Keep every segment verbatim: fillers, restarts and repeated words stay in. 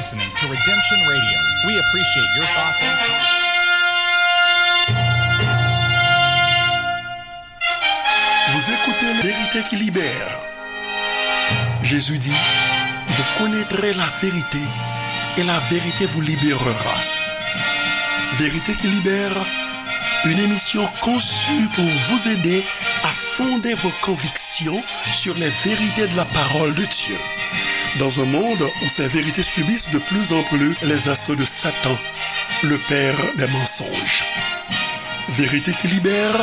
Listening to Redemption Radio. We appreciate your thoughts and comments. Vous écoutez Vérité qui libère. Jésus dit, vous connaîtrez la vérité et la vérité vous libérera. Vérité qui libère, une émission conçue pour vous aider à fonder vos convictions sur les vérités de la parole de Dieu. Dans un monde où ces vérités subissent de plus en plus les assauts de Satan, le père des mensonges. Vérité qui libère,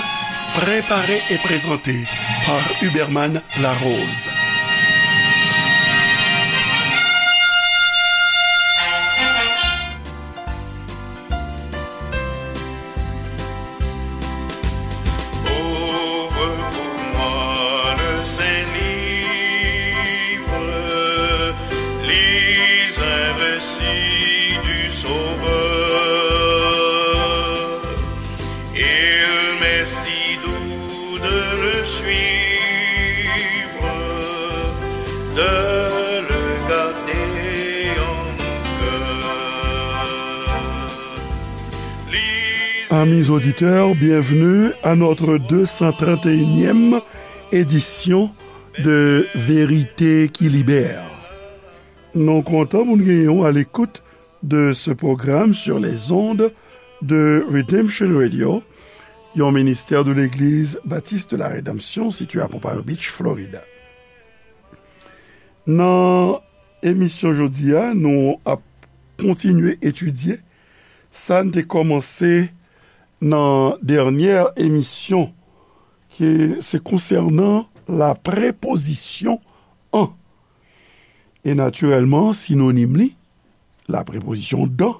préparée et présentée par Huberman Larose. Ouvre pour moi le saint livre, lis un récit du Sauveur. Il m'est si doux de le suivre, de le garder en mon cœur. Amis auditeurs, bienvenue à notre deux cent trente et unième édition de Vérité qui libère. Nou kontan pou n genyen w à l'écoute de ce programme sur les ondes de Redemption Radio, yon ministè de Legliz Batis de la Redanmsyon sitiye à Pompano Beach, Florida. Nan emisyon jodi a, nou ap kontinye etidye sa n te kòmanse nan dènyè emisyon, ki se konsènan la prepozisyon an. E natirèlman, sinonim li, la prepozisyon dan,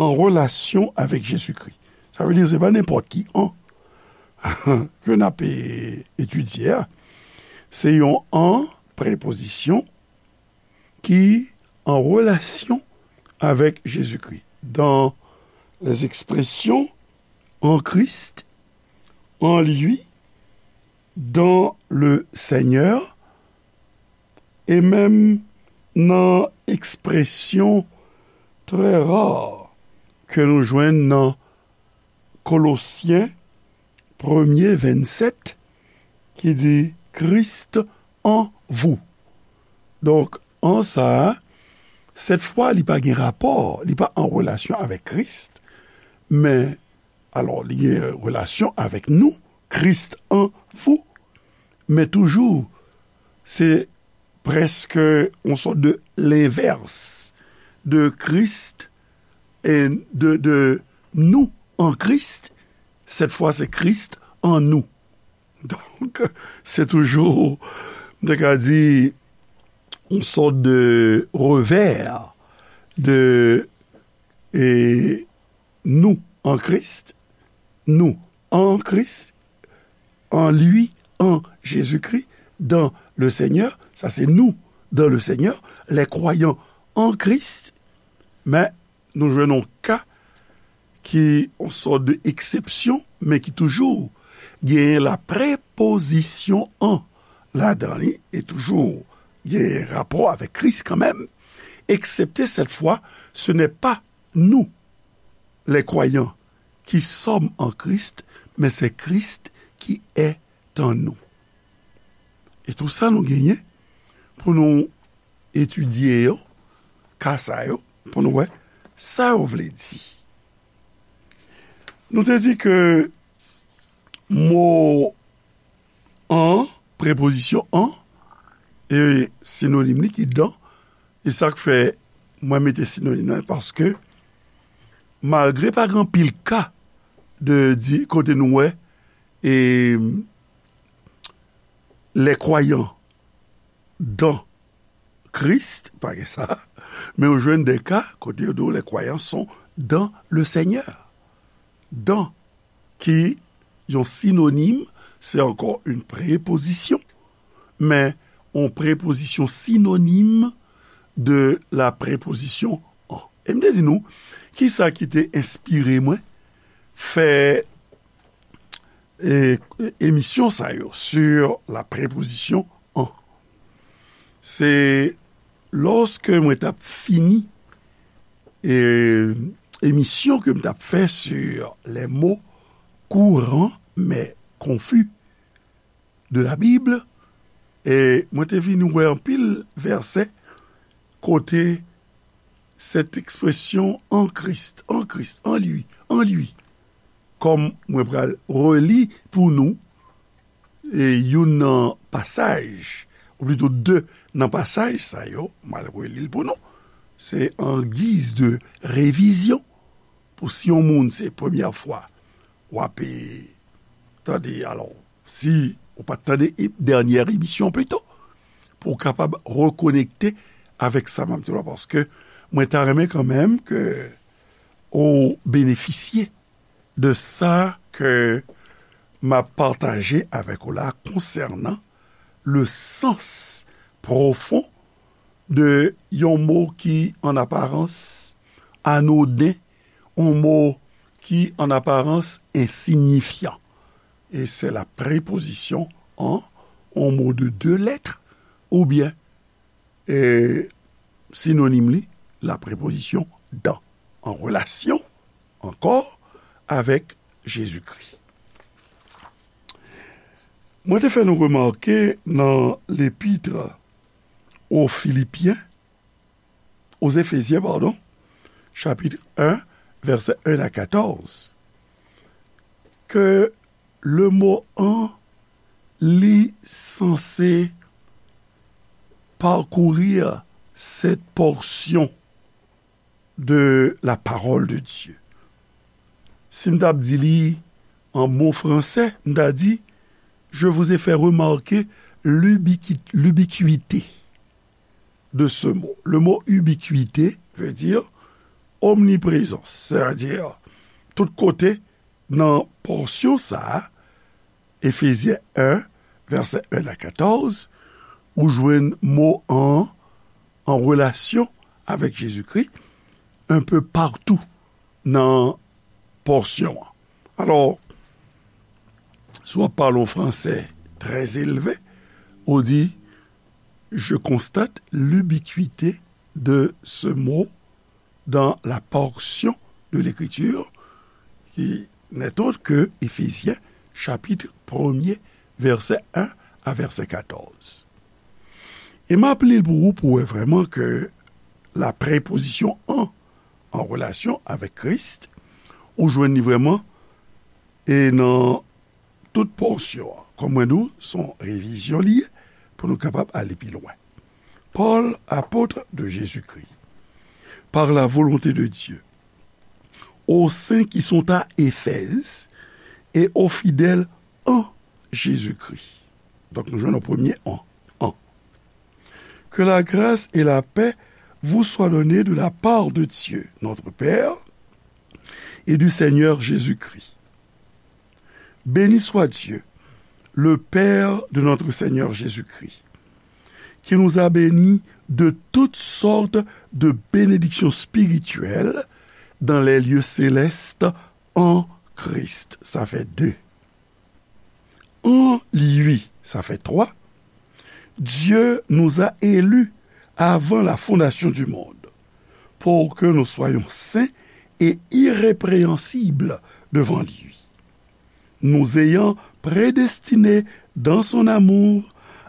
an relasyon avèk Jezikri. Sa vle di, se pa nenpòt ki an ke n ap, e, etidye a. Se yon an, prepozisyon, ki an relasyon avèk Jezikri. Dans les expressions en Christ, en lui, dans le Seigneur, e menm nan ekspresyon trè ra ke nou jwenn nan Kolosyen premye vennsèt, ki di, Christ en vous. Donk, an sa a, sèt fwa, li pa gen rapò, li pa an relasyon avèk Kris, men, alò, li gen relasyon avèk nou, Christ en vous, men toujou, se prèske yon sòt de lenvès de Christ e de, de nous en Christ. Sèt fwa, se Christ en nous. Donk, se toujou, m te ka di, yon sòt de revè de, e, nous en Christ, nous en Christ, en lui, en Jésus-Christ, dans le Seigneur, sa se nous dans le Seigneur, les croyants en Christ, men nou jwenn yon ka ki yon sòt de eksepsyon, men ki toujou genyen la prepozisyon en ladan li, e toujou genyen rapò avèk Kris kanmenm, eksepte sèt fwa, ce n'est pas nous, les croyants, qui sommes en Christ, mais c'est Christ qui est en nous. E tou sa nou genyen pou nou etidye yo, ka sa yo, pou nou wè sa yo vle di. Nou te di ke mo en, prepozisyon en, e sinonim li ki dan, e sa k fè mwen mete sinonim nan, paske malgre pa gen anpil ka de di kote nou wè, e, les croyants dans Christ, pa gen sa, men ou jwenn de ka kote yo di w les croyants sont dans le Seigneur. Dans, ki yon sinonim, se ankò yon prepozisyon, men yon prepozisyon sinonim de la prepozisyon en. E m te di nou, ki sa ki te enspire mwen fè, e, emisyon sa yo, sur la prepozisyon en. Se lòske mwen t ap fini e, emisyon ke m t ap fè sur les mots courants mais confus de la Bible, e mwen te vin wè anpil vèsè kote cette expression en Christ, en Christ, en lui, en lui, kòm mwen pral reli pou nou, e youn nan pasaj, ou plito de nan pasaj sa yo, m al reli l pou nou. Se an giz de revizyon, pou si yon moun se premyè fwa w ap, e, tande, alò, si ou pa t tande e, dènyè emisyon pito, pou w kapab rekonekte avèk sa m ap di w la, paske mwen ta renmen kanmenm ke ou benefisye de sa ke m ap pataje avèk ou la konsènan le sens pwofon de yon mo ki an aparans anoden, yon mo ki an aparans ensinyifyan. E se la prepozisyon an, yon mo de de lèt, oubyen, e, sinonim li, la prepozisyon dan, an relasyon ankò avèk Jezikri. Mwen te fè nou remake nan lepitre aux Philippiens, aux Éphésiens, pardon, chapitre un, vèsè un à quatorze, ke le mo an, li sanse parcourir cette portion de la parole de Dieu. Si m t ap di li an mo fransè, m ta di, je vous ai fait remarquer l'ubiqui-, l'ubiquité de ce mot. Le mot ubiquité veut dire omniprésence, c'est-à-dire tout kote nan pòsyon sa a, Efezyen un, vèsè un à quatorze, ou jwenn mo an, an relasyon avèk Jezikri, un peu partout nan pòsyon an. Alò, si w ap pale yon fransè trè elve, ou di, je constate l'ubiquité de ce mot dans la portion de l'Écriture qui n'est autre que Éphésiens chapitre premier, vèsè un à vèsè katòz. E m ap li l pou ou, pou wè vrèman ke la prepozisyon an, an relasyon avèk Kris, ou jwenn li vrèman, e nan tout pòsyon an. Kòm mwen di w, se yon revizyon li ye, pou nou kapab ale pi lwen. Paul, apôtre de Jésus-Christ, par la volonté de Dieu, aux saints qui sont à Éphèse et aux fidèles en Jésus-Christ. Donk, nou jwenn yon premye an, an. Que la grâce et la paix vous soient données de la part de Dieu, notre Père, et du Seigneur Jésus-Christ. Béni soit Dieu, le Père de notre Seigneur Jésus-Christ, qui nous a bénis de toutes sortes de bénédictions spirituelles dans les lieux célestes en Christ. Sa fè de. En lui, sa fè twa. Dieu nous a élus avant la fondation du monde, pour que nous soyons saints et irrépréhensibles devant lui, nous ayant prédestinés dans son amour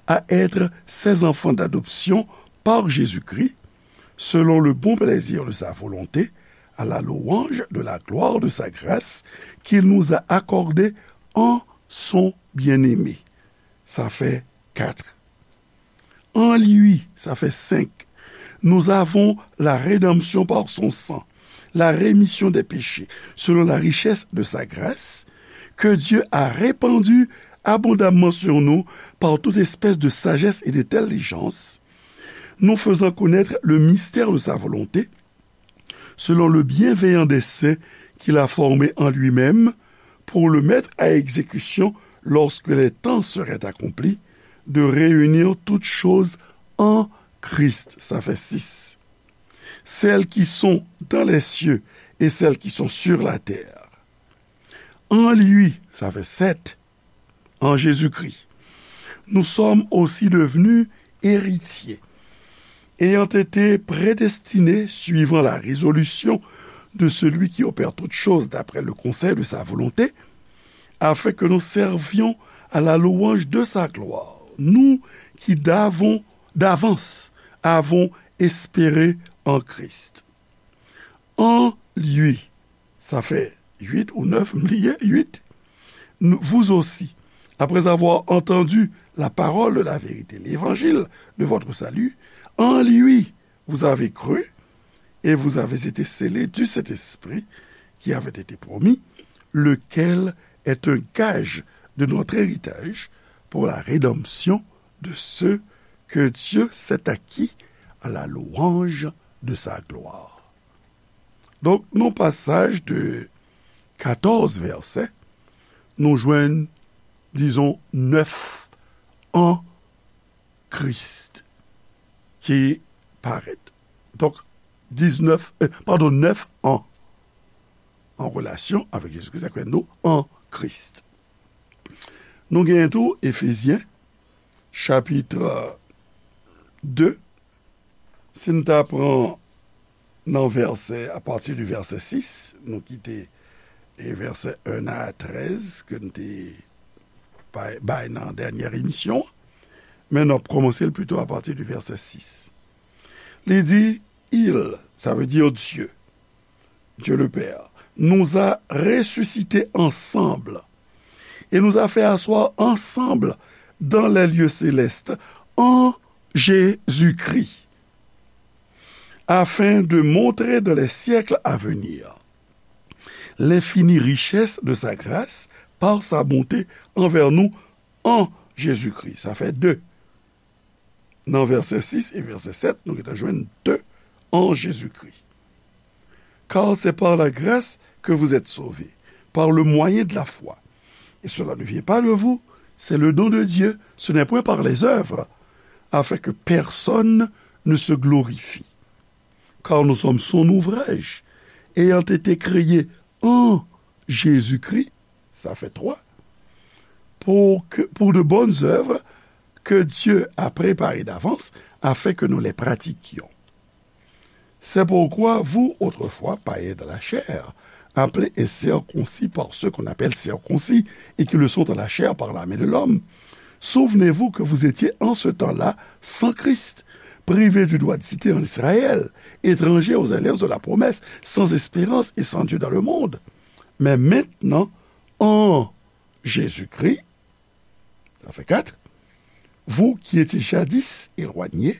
à être ses enfants d'adoption par Jésus-Christ, selon le bon plaisir de sa volonté, à la louange de la gloire de sa grâce qu'il nous a accordée en son bien-aimé. Sa fè kat. En lui, sa fè senk. Nous avons la rédemption par son sang, la rémission des péchés, selon la richesse de sa grâce, que Dieu a répandue abondamment sur nous par toute espèce de sagesse et d'intelligence, nous faisant connaître le mystère de sa volonté, selon le bienveillant dessein qu'il a formé en lui-même pour le mettre à exécution lorsque les temps seraient accomplis, de réunir toutes choses en Christ. Sa fè sis. Celles qui sont dans les cieux et celles qui sont sur la terre. En lui, sa fè sèt. En Jésus-Christ, nous sommes aussi devenus héritiers, ayant été prédestinés suivant la résolution de celui qui opère toutes choses d'après le conseil de sa volonté, afin que nous servions à la louange de sa gloire, nous qui d'avons, d'avance avons espéré en Christ. En lui, sa fè uit ou nèf, m bliye, uit, vous aussi, après avoir entendu la parole de la vérité, l'évangile de votre salut, en lui, vous avez cru et vous avez été scellés du Saint-Esprit qui avait été promis, lequel est un gage de notre héritage pour la rédemption de ceux que Dieu s'est acquis à la louange de sa gloire. Donk, nan pasaj de katòz vèsè, nou jwenn, dizon, nèf an Kris ki parèt. Donk, diznèf, eh, padon, nèf an an relasyon avèk Jezi Kris, sa k fè nou an Kris. Nou genyen tou Efezyen, chapit de, si n ta pran nan vèsè, apati de vèsè sis, nou kite e vèsè en a trèz ke n te bay, bay nan dènyè emisyon, men n ap kòmanse l pito apati de vèsè sis. Li di, Il, sa vle di Dye, Dieu le Père, nous a ressuscités ensemble et nous a fait asseoir ensemble dans les lieux célestes en Jésus-Christ, afin de montrer dans les siècles à venir l'infinie richesse de sa grâce par sa bonté envers nous en Jésus-Christ. Sa fè de. Nan vèsè sis e vèsè sèt, nou gentan jwenn de en Jésus-Christ. Car c'est par la grâce que vous êtes sauvés, par le moyen de la foi. Et cela ne vient pas de vous, c'est le don de Dieu, ce n'est point par les œuvres, afin que personne ne se glorifie. Car nous sommes son ouvrage, ayant été créés en Jésus-Christ, sa fè twa, pour que, pour de bonnes œuvres que Dieu a préparées d'avance afin que nous les pratiquions. C'est pourquoi vous, autrefois païens dans la chair, appelés incirconcis par ceux qu'on appelle circoncis et qui le sont dans la chair par la main de l'homme, souvenez-vous que vous étiez en ce temps-là sans Christ, privés du droit de cité en Israël, étrangers aux alliances de la promesse, sans espérance et sans Dieu dans le monde. Mais maintenant, en Jésus-Christ, ça fait quatre, vous qui étiez jadis éloignés,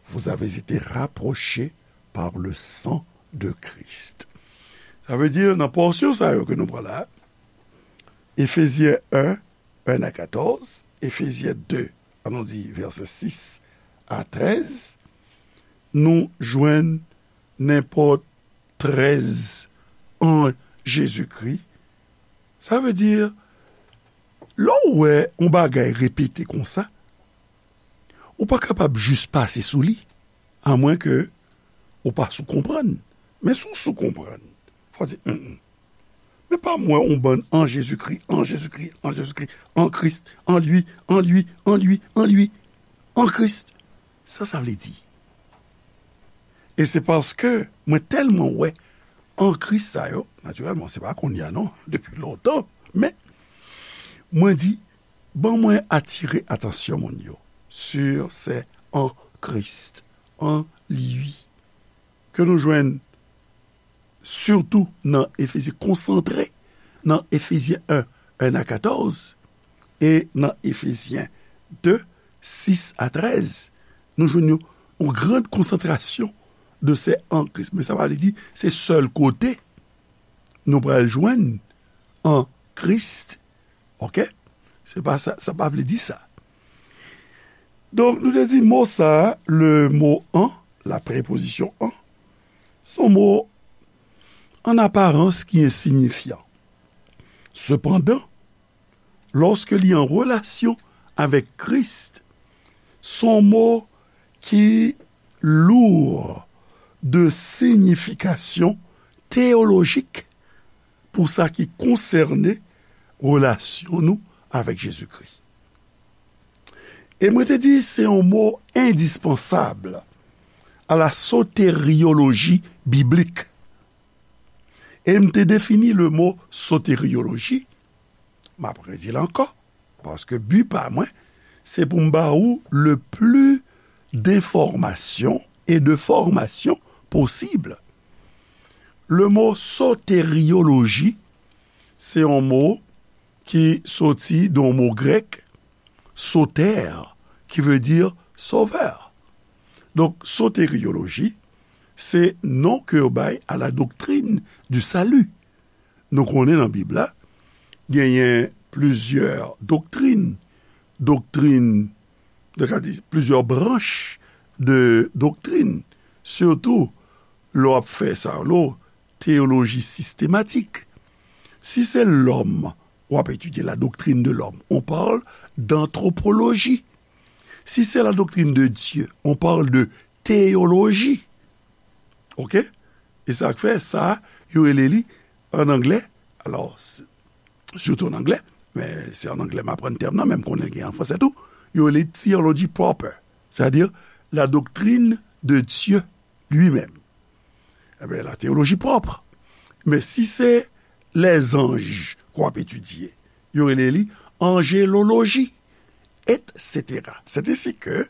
vous avez été rapprochés par le sang de Christ. Sa vle di, nan pòsyon sa yo ke nou pran la, Efezyen en, en a katòz, Efezyen de, an nou di vèsè sis a trèz, nou jwenn nenpòt trèz an Jezikri. Sa vle di, lè w wè yon bagay repete konsa, ou pa kapab jis pase sou li, amwenke ou pa sou konprann. Men si w sou konprann, fò w di, "Hum, hum. Men pa m wè yon bann an Jezikri, an Jezikri, an Jezikri, an Kris, an li, an li, an li, an li, an Kris." Sa sa vle di? E se paske mwen tèlman wè an Kris sa yo, natirèlman, se pa kounye a non, depi lontan, men mwen di, ban mwen atire atansyon moun yo sur se an Kris, an li, ke nou jwenn sitou nan Efezyen, konsantre nan Efezyen en, en a katòz, e nan Efezyen de, sis a trèz, nou jwenn yon, yon gran konsantrasyon de se an Kris. Men sa pa vle di se sèl kote nou pral jwenn an Kris. Oke? Se pa sa, sa pa vle di sa. Donk, nou te di mo sa, le mo an, la prepozisyon an, se yon mo an aparans ki ensinyifyan. Sepandan, lòske li an relasyon avèk Kris, se yon mo ki lou de siyifikasyon teyolojik pou sa ki konsène relasyon nou avèk Jezikri. E mwen te di se yon mo endispansab à la soteriologie biblique. E m te defini le mo soterioloji, m ap redi l ankò, paske bi pa mwen, se pou m ba ou le plus d'informations et de formations possible. Le mo soterioloji, se yon mo ki soti de yon mo grèk, soter, qui veut dire sauveur. Donk, soterioloji, se non ke yo bay à la doctrine du salut. Nou konnen nan Bib la, genyen plizyè doktrin, doktrin, nou ka di, plizyè branch de doktrin, sitou lè w ap fè sa, lè w teyoloji sistematik. Si se lòm, w ap etidye la doctrine de l'homme, on parle d'anthropologie. Si se la doctrine de Dieu, on parle de théologie. Oke? E sa k fè sa, yo rele li an anglè, alò, s- sitou an anglè, men se an anglè m aprann tèm nan, men m konnen gen an fransè tou, yo rele theology proper, c'est-à-dire la doctrine de Dieu lui-même. Ebyen, la théologie propre. Men si se lèzanj k w ap etidye, yo rele li anjeloloji, et cetera. C'est ainsi que,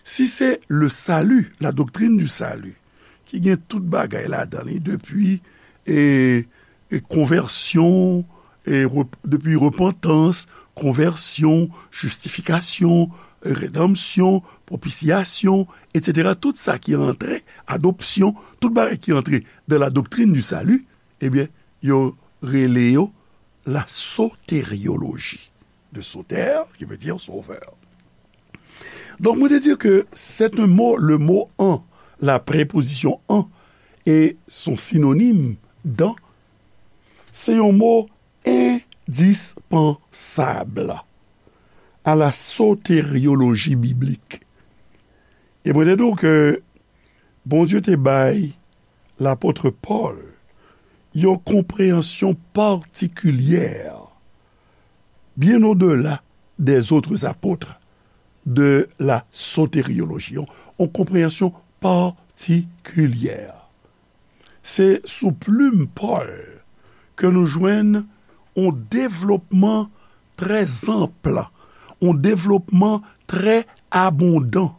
si se le salut, la doctrine du salut, ki gen tout bagay ladan li, depi, e, e konvèsyon, e rep- depi repantans, konvèsyon, jistifikasyon, redanmsyon, pwopisyasyon, et cetera. Tout sa ki antre, adopsyon, tout bagay ki antre dans la doctrine du salut, ebyen, yo rele yo la soterioloji. De soter, qui veut dire sauveur. Donk, mwen te di ke c'est un mot, le mot en, la préposition en, et son synonyme dans, se yon mo endispansab à la soteriologie biblique. E mwen te di w ke Bondye te bay lapot Pòl yon konpreyansyon patikilyè, bien au-delà des autres apôtres, de la soterioloji, yon, yon konpreyansyon patikilyè. Se sou plim Pòl ke nou jwenn yon devlopman trè anp, yon devlopman trè abondan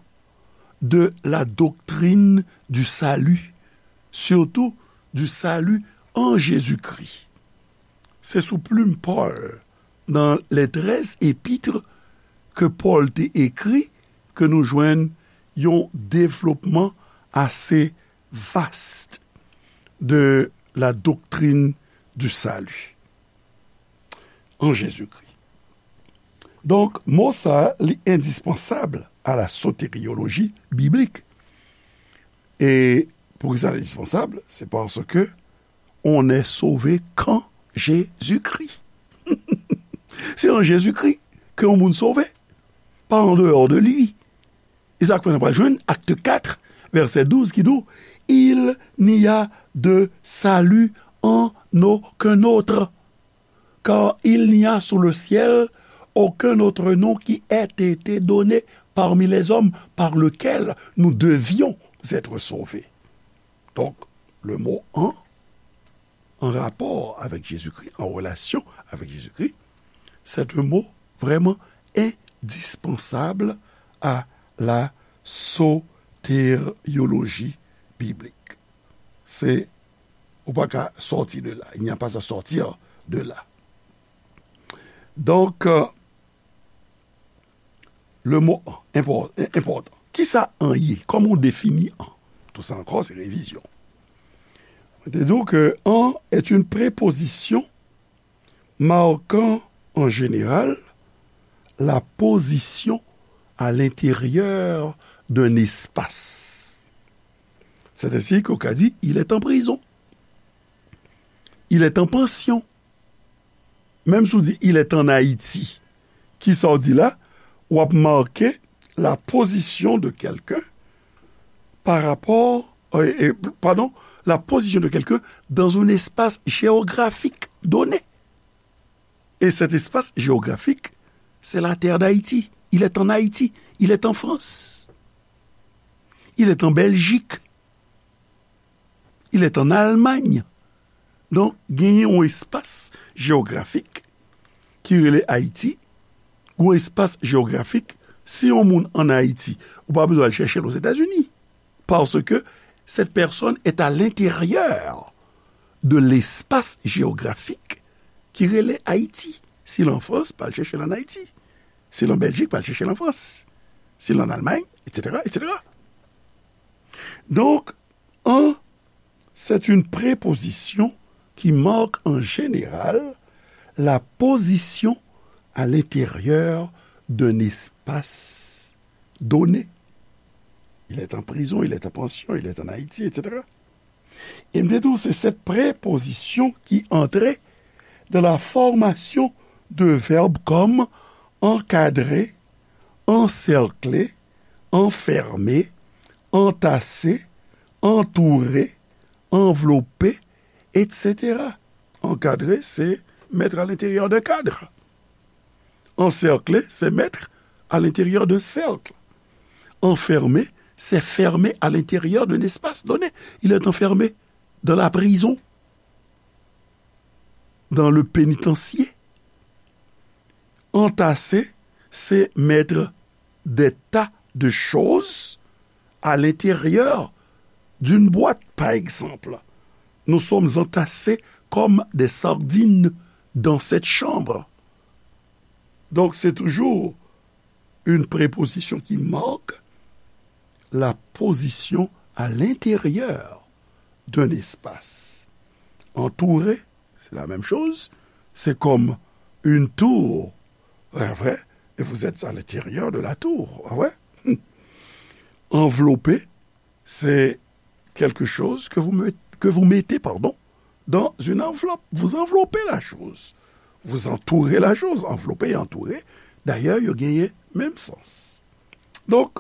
de la doctrine du salut, surtout du salut en Jésus-Christ. Se sou plim Pòl, dans les treize épîtres que Paul te écrit, ke nou jwenn yon devlopman ase vaste de la doctrine du salut en Jésus-Christ. Donk, mo sa, li endispansab à la soteriologie biblique. E poukisa l endispansab? Se paske on est sauvé qu'en Jésus-Christ. Se an Jezikri ke yon moun sove, pa an deyò de li. E sa k fè n pral jwenn Actes quatre, verset douze, ki di w, il n'y a de salut en aucun autre, car il n'y a sous le ciel aucun autre nom qui ait été donné parmi les hommes par lequel nous devions être sauvés. Donk, le mo en, an rapò avèk Jezikri, an relasyon avèk Jezikri, c'est un mot vraiment indispensable à la soterioloji biblik. Se, ou pa ka sòti de la. Il n'y a pas à sortir de là. Donk, euh, le mot en, enpò-, en, enpòtan. Kisa en ye? Kòman w defini en? Tout sa ankò, se revizyon. Mwen te di w ke en est une préposition marquant en général la position à l'intérieur d'un espace. C'est ainsi qu'on ka di, il est en prison. Il est en pension. Menm si w di, il est en Haïti, kisa w di la? W ap make la position de quelqu'un par rapport, euh, euh, pardon, la position de quelqu'un dans un espace géographique donné. Et cet espace géographique, c'est la terre d'Haïti. Il est en Haïti. Il est en France. Il est en Belgique. Il est en Allemagne. Donk, genyen yon espas jewografik ki rele Ayiti, yon espas jewografik, si yon moun ann Ayiti, ou pa bezwen al chèche l Ozetazini, parce que cette personne est à l'intérieur de l'espace géographique ki rele Ayiti. Si l an Frans, pa al chèche l ann Ayiti. Si l an Bèljik, pa al chèche l an Frans. Si l an Almay, etsetera, etsetera. Donc, en, c'est une préposition qui marque en général la position à l'intérieur d'un espace donné. Il est en prison, il est en pension, il est en Haïti, etsetera. E m te di w, se cette préposition qui entrait dans la formation de verbes comme encadrer, encercler, enfermer, entasser, entourer, envelopper, etsetera. Encadrer, c'est mettre à l'intérieur d'un cadre. Encercler, c'est mettre à l'intérieur d'un cercle. Enfermer, c'est fermer à l'intérieur d'un espace donné. Il est enfermé dans la prison, dans le pénitencier. Entasser, c'est mettre des tas de choses à l'intérieur d'une boîte, par exemple. Nous sommes entassés comme des sardines dans cette chambre. Donc, c'est toujours une préposition qui marque la position à l'intérieur d'un espace. Entourer, c'est la même chose. C'est comme une tour. Ouais, ouais. Et vous êtes à l'intérieur de la tour. Ah ouais? Envelopper, c'est quelque chose que vous met-, que vous mettez, pardon, dans une enveloppe. Vous enveloppez la chose. Vous entourez la chose. Envelopper et entourer, d'ailleurs, yo genyen menm sans. Donk,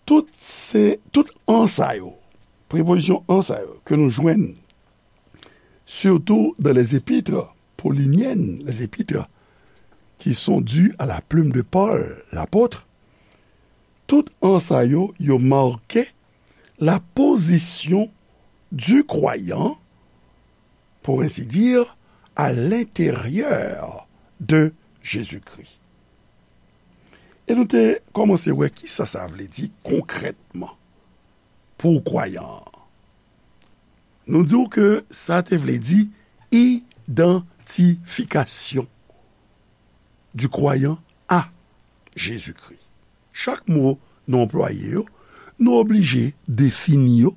tout se, tout an sa yo, prepozisyon an sa yo, ke nou jwenn, surtout dans les épîtres pauliniennes, les épîtres qui sont dues à la plume de Paul, l'apôtre, tout an sa yo, yo make la position du croyant, pour ainsi dire, à l'intérieur de Jésus-Christ. E nou te kòmanse wè kisa sa vle di konkrètman pou kwayan an. Nou di w ke sa te vle di idantifikasyon du croyant à Jésus-Christ. Chak mo nou anplwaye yo, nou oblije defini yo,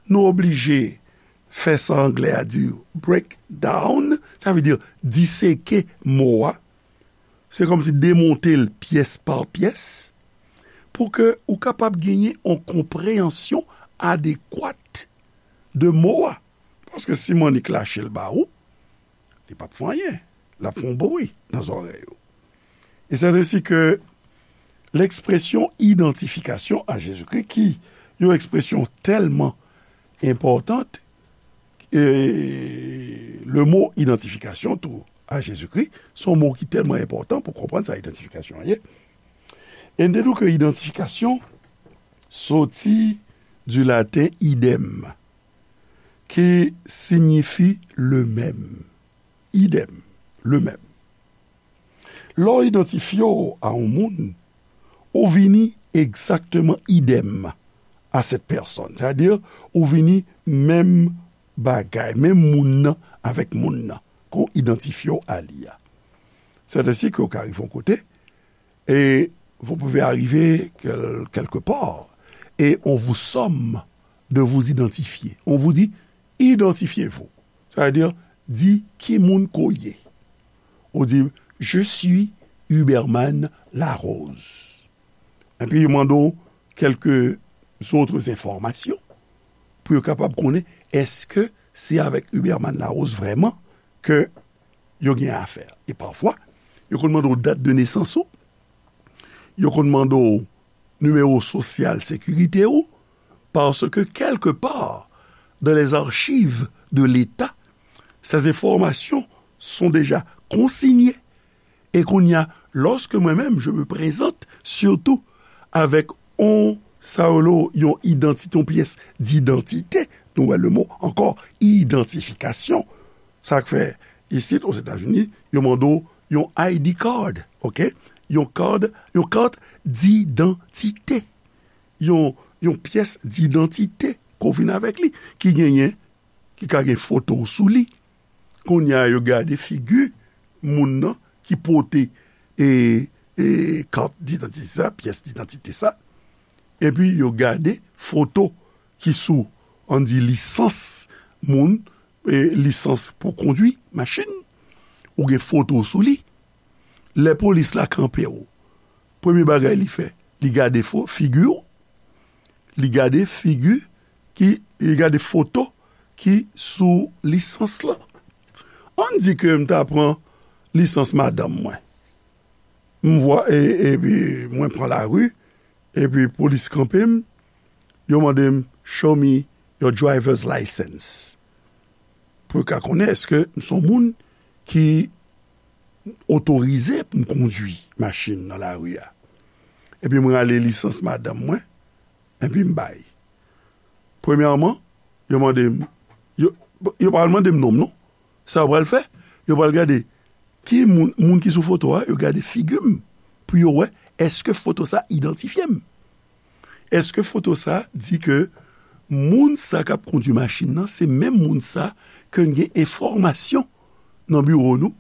nou oblije fè sa anglè a di break down, sa vle di diseke mo a, se kòmsi demonte l pyès pa pyès, pou ke ou kapab genyen yon konpreyansyon adekwat de mo a. Paske si m annik lache l ba ou, li p ap fè anyen. L ap fè yon bri nan zòrèy ou. E c'est ainsi que l'expression identification à Jésus-Christ, ki yon ekspresyon tèlman enpòtan, e le mo identification tou à Jésus-Christ, se yon mo ki tèlman enpòtan pou konprann sa idantifikasyon an ye. E n te di w ke idantifikasyon soti du laten idem, ki siyifi le même. Idem, le même. Lè w idantifye w a yon moun, ou vini egzakteman idem a cette personne. Sètadi, ou vini menm bagay, menm moun nan avèk moun nan, ke w idantifye w a li a. C'est ainsi que w ka rive yon kote, et vous pouvez arriver quel-, quelque part, et on vous somme de vous identifier. On vous dit, identifiez-vous. Sa vle di, di ki moun ke w ye. Ou di, je suis Huberman Larose. Epi yo mande w quelques autres informations pou yo kapab konnen èske se avèk Huberman Larose vrèman ke yo gen afè. E pafwa, yo konn mande w dat de nesans ou, yo konn mande w nimewo sosyal sekirite ou, parce que quelque part dans les archives de l'État, ces informations sont déjà consignées. E kounye a, lorsque moi-même je me présente, surtout avec yon sa yo rele yon idantite, yon pyès didantite. Nou wè le mo ankò, idantifikasyon. Sa k fè, isit, Ozetazini, yo mande w yon I D card, oke? Yon card, yon kat didantite. Yon, yon pyès didantite ke w vin avèk li, ki genyen, ki ka gen foto w sou li. Kounye a, yo gade figi moun nan ki pote, e, e, kat didantite sa, pyès didantite sa. Epi, yo gade foto ki sou, ann di, lisans moun, e, lisans pou kondwi machin. Ou gen foto sou li. Lè polis la kanpe w, premye bagay li fè, li gade fo-, figi w, li gade figi ki, li gade foto ki sou lisans lan. Ann di ke m ta pran lisans madanm mwen. M vwa-, e, epi mwen pran lari, epi polis kanpe m, yo mande m, "Show me your driver's license." Pou yo ka konnen èske m se yon moun ki otorize pou m kondwi machin nan lari a. Epi mwen rale lisans madanm mwen, epi m bay. Premyèman, yo mande m, yo, yo pa pral mande m non m non. Sa yo pral fè, yo pral gade ki moun, moun ki sou foto a, yo gade figi m pou yo wè èske foto sa idantifye m. Èske foto sa di ke moun sa k ap kondwi machin nan, se menm moun sa ke n gen enfòmasyon nan biwo nou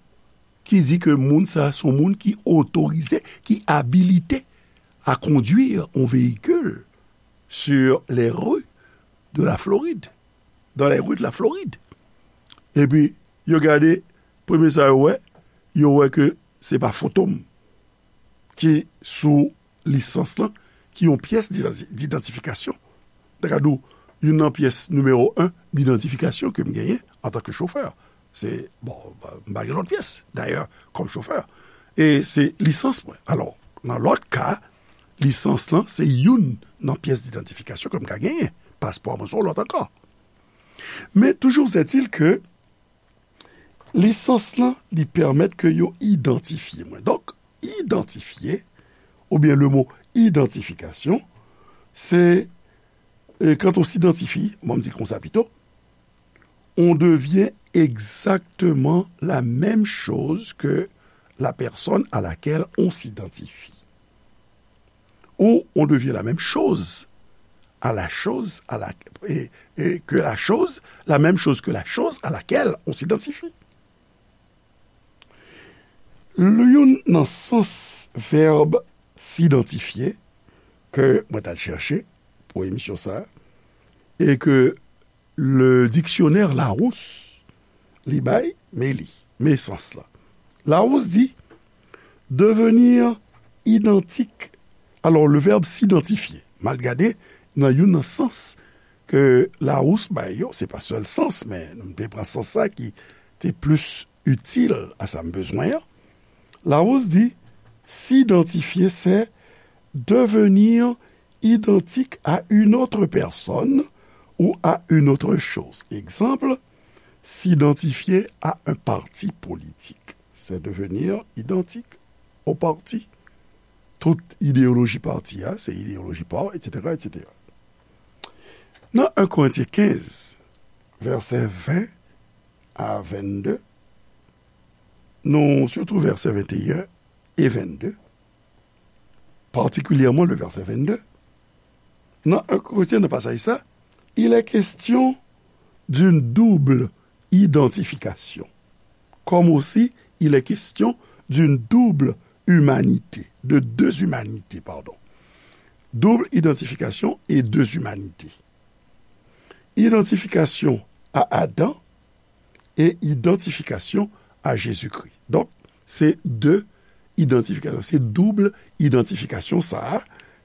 ki di ke moun sa se yon moun ki otorize, ki abilite à conduire un véhicule sur les rues de la Floride, dans les rues de la Floride. Epi, yo gade, premye sa yo wè, yo wè ke se pa foto m ki sou lisans lan, ki yon pyès didanti-, didantifikasyon. Dakadou, youn nan pyès nimewo en didantifikasyon ke m genyen antanke chofè. Se, bon, m pa gen lòt pyès, dayè, kòm chofè. E se lisans mwen. Alò, nan lòt ka, lisans lan, se youn nan pyès didantifikasyon ke m ka genyen. Paspò mwen se yon lòt ankò. Men toujou est-il ke lisans lan, li pèmèt ke yo idantifye mwen. Donk, idantifye, oubyen le mo idantifikasyon, se, e, quand on s'identifie, bon, m di l konsa pito, on devient exactement la même chose que la personne à laquelle on s'identifie. Ou on devient la même chose à la chose à la, et, et que la chose, la même chose que la chose à laquelle on s'identifie. Youn nan sans vèb s'idantifye ke mwen t al chèche pou emisyon sa a, e ke le dictionnaire Larousse li bay, men li, men sans la. Larousse di, devenir identique. Alò, le verbe s'identifier, m al gade nan youn nan sans ke Larousse bay yo, se pa sèl sans, men m te pran sans sa ki te plis itil a sa m bezwen an. Larousse di, s'identifier, c'est devenir identique à une autre personne ou à une autre chose. Exemple, s'identifier à un parti politique, c'est devenir identique au parti. Tout idéologie parti a, se idéologie pa w, et cetera, et cetera. Nan en Korentyen kenz, vèsè ven a vennde, nou, sitou vèsè venteyen e vennde, particulièrement le verset vingt-deux, nan en Korentyen, nan pasaj sa, il est question d'une double identification, comme aussi il est question d'une double humanité, de deux humanités, pardon. Double identification et deux humanités. Identification à Adam et identification à Jésus-Christ. Donk, se de idantifikasyon, se doub idantifikasyon sa a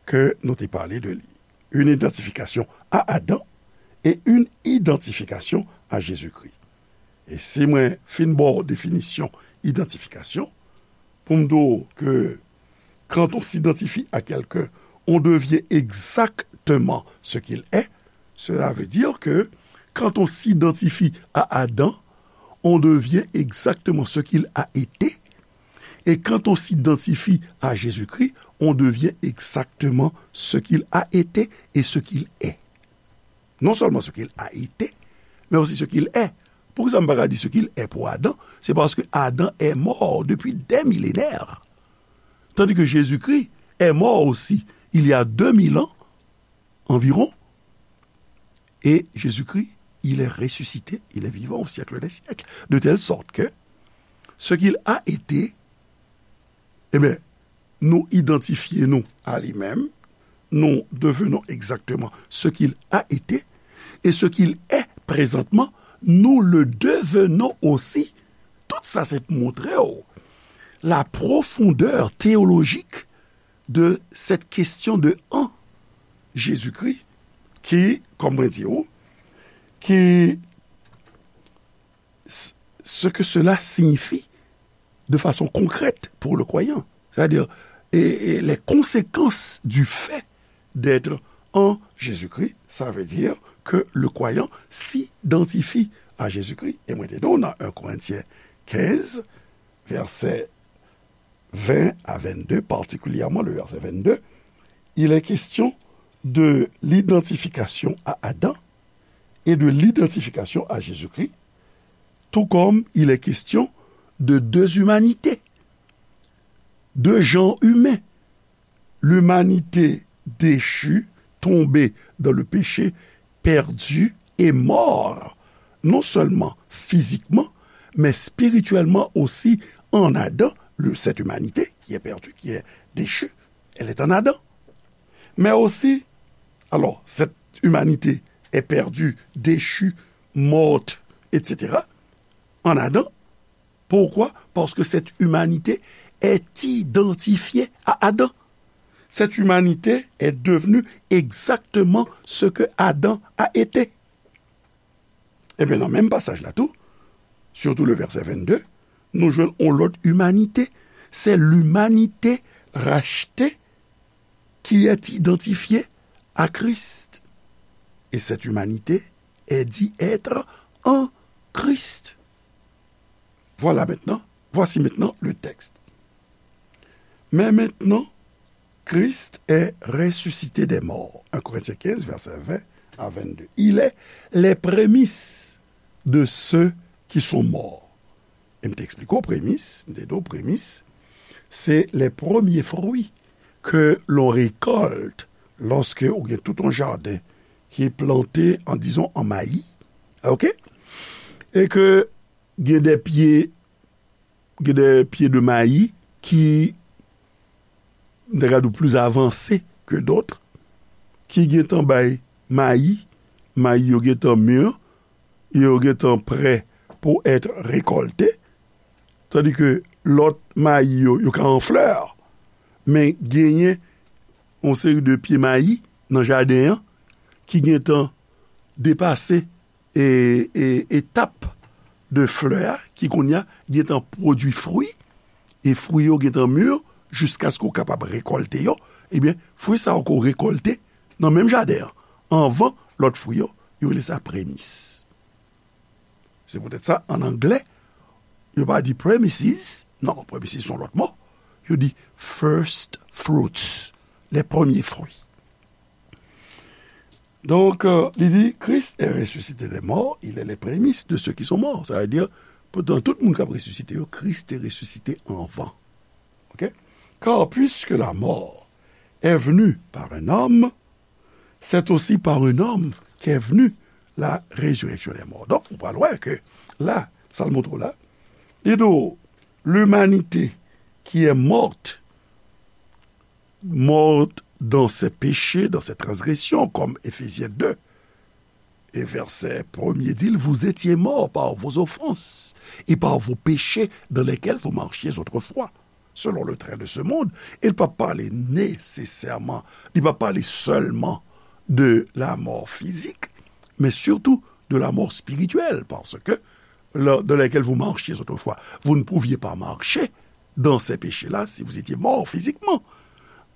ke nou te pale de li. Une identification à Adam et une identification à Jésus-Christ. E si mwen fin ba w definisyon idantifikasyon, pou m di w ke quand on s'identifie à quelqu'un, on devient exactement ce qu'il est, cela veut dire que quand on s'identifie à Adam, on devient exactement ce qu'il a été. Et quand on s'identifie à Jésus-Christ, on devient exactement ce qu'il a été et ce qu'il est. Non seulement ce qu'il a été, mais aussi ce qu'il est. Poukisa m pa ka di ce qu'il est pou Adan? C'est parce que Adam est mort depuis des millénaires. Tandis que Jésus-Christ est mort aussi il y a deux mille ans environ. Et Jésus-Christ, il est ressuscité, il est vivant au siècle des siècles. De telle sorte que ce qu'il a été, eh bien, nous identifions nous à lui-même, nous devenons exactement ce qu'il a été, et ce qu'il est présentement, nous le devenons aussi. Tout sa se pou montre w la profondeur théologique de cette question de en Jésus-Christ, ki, kòm mwen di w, ki, ce que cela signifie de façon concrète pour le croyant. C'est-à-dire, et, et les conséquences du fait d'être en Jésus-Christ, ça veut dire que le croyant s'identifie à Jésus-Christ. E mwen te di w nan un Corinthiens quinze, verset vingt à vingt-deux, particulièrement le verset vingt-deux, il est question de l'identification à Adam et de l'identification à Jésus-Christ, tout comme il est question de deux humanités, deux genres humains, l'humanité déchue, tombée dans le péché, perdue et mort, non seulement physiquement, mais spirituellement aussi en Adam, le, cette humanité qui est perdue, qui est déchue, elle est en Adam. Mais aussi, alors, cette humanité est perdue, déchue, morte, et cetera, en Adam. Pourquoi? Parce que cette humanité est identifiée à Adam. Cette humanité est devenue exactement ce que Adam a été. Ebyen, nan menm pasaj la tou, surtout le verset vingt-deux, nou jwenn yon lòt imanite. C'est l'humanité rachetée qui est identifiée à Christ. Et cette humanité est dit être en Christ. Voilà maintenant, voici maintenant le texte. Mais maintenant, Christ est ressuscité des morts. Un Corinthiens quinze, verset vingt à vingt-deux. Il est les prémices de ceux qui sont morts. E m te eksplike w premis, m te di w premis, se les premiers fruits que l'on récolte lorsque ou gen tout yon jaden ki plante an, dizon, an mayi, ok? E ke gen de pye, gen de pye de mayi ki, m ta ka di w, plis avanse ke dòt, ki gentan bay mayi, mayi yo gentan mi, yo gentan prè pou èt rekòlte, tandi ke lòt mayi yo, yo ka an flè, men genyen yon seri de pye mayi nan jaden an ki gentan depase e, e, etap de flè a, ki kounye a gentan pwodui fwi, e fwi yo gentan mi, jiskaske w kapab rekòlte yo, ebyen, fwi sa yo ke w rekòlte nan menm jaden an, anvan lòt fwi yo, yo rele sa premis. Se poutèt sa, an anglè, yo pa di premises, non, premises se yon lòt mo, yo di first fruits, les premiers fruits. Donk, euh, li di, Christ est ressuscité des morts, il est les prémices de ceux qui sont morts. Sa vle di, pou, nan tout moun k ap resisite yo, Kris te resisite anvan. Ok? Car puisque la mort est venue par un homme, c'est aussi par un homme qu'est venue la résurrection des morts. Donk, ou pral wè ke la, sa l montre w la, li di w, l'humanité qui est morte, morte dans ses péchés, dans ses transgressions, comme Éphésiens deux et verset premier dit, vous étiez morts par vos offenses et par vos péchés dans lesquels vous marchiez autrefois, selon le train de ce monde. E l pa pale nesesèman, li pa pale sèlman de la mort physique, mais surtout de la mort spirituelle, parce que là, dans laquelle vous marchiez autrefois, vous ne pouviez pas marcher dans ces péchés-là si vous étiez mort physiquement.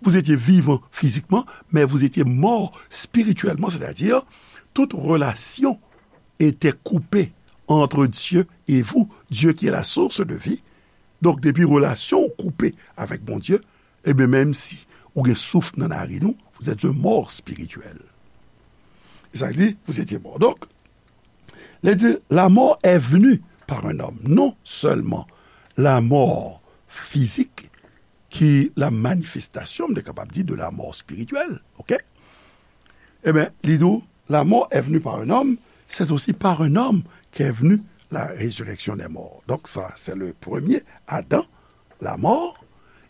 Vous étiez vivant physiquement, mais vous étiez mort spirituellement, c'est-à-dire toute relation était coupée entre Dieu et vous, Dieu qui est la source de vie. Donk, depi relasyon w koupe avèk Bondye, ebyen, menm si ou gen souf nan narin ou, vous êtes un mort spirituel. E sa di, vous étiez mort. Donk, lè di, la mort est venue par un homme. Non sèlman la mò fizik ki la manifestasyon, m te kapab di, de la mort spirituelle, ok? Ebyen, li di w, la mort est venue par un homme, c'est aussi par un homme qu'est venue la résurrection des morts. Donc ça, c'est le premier Adam, la mort,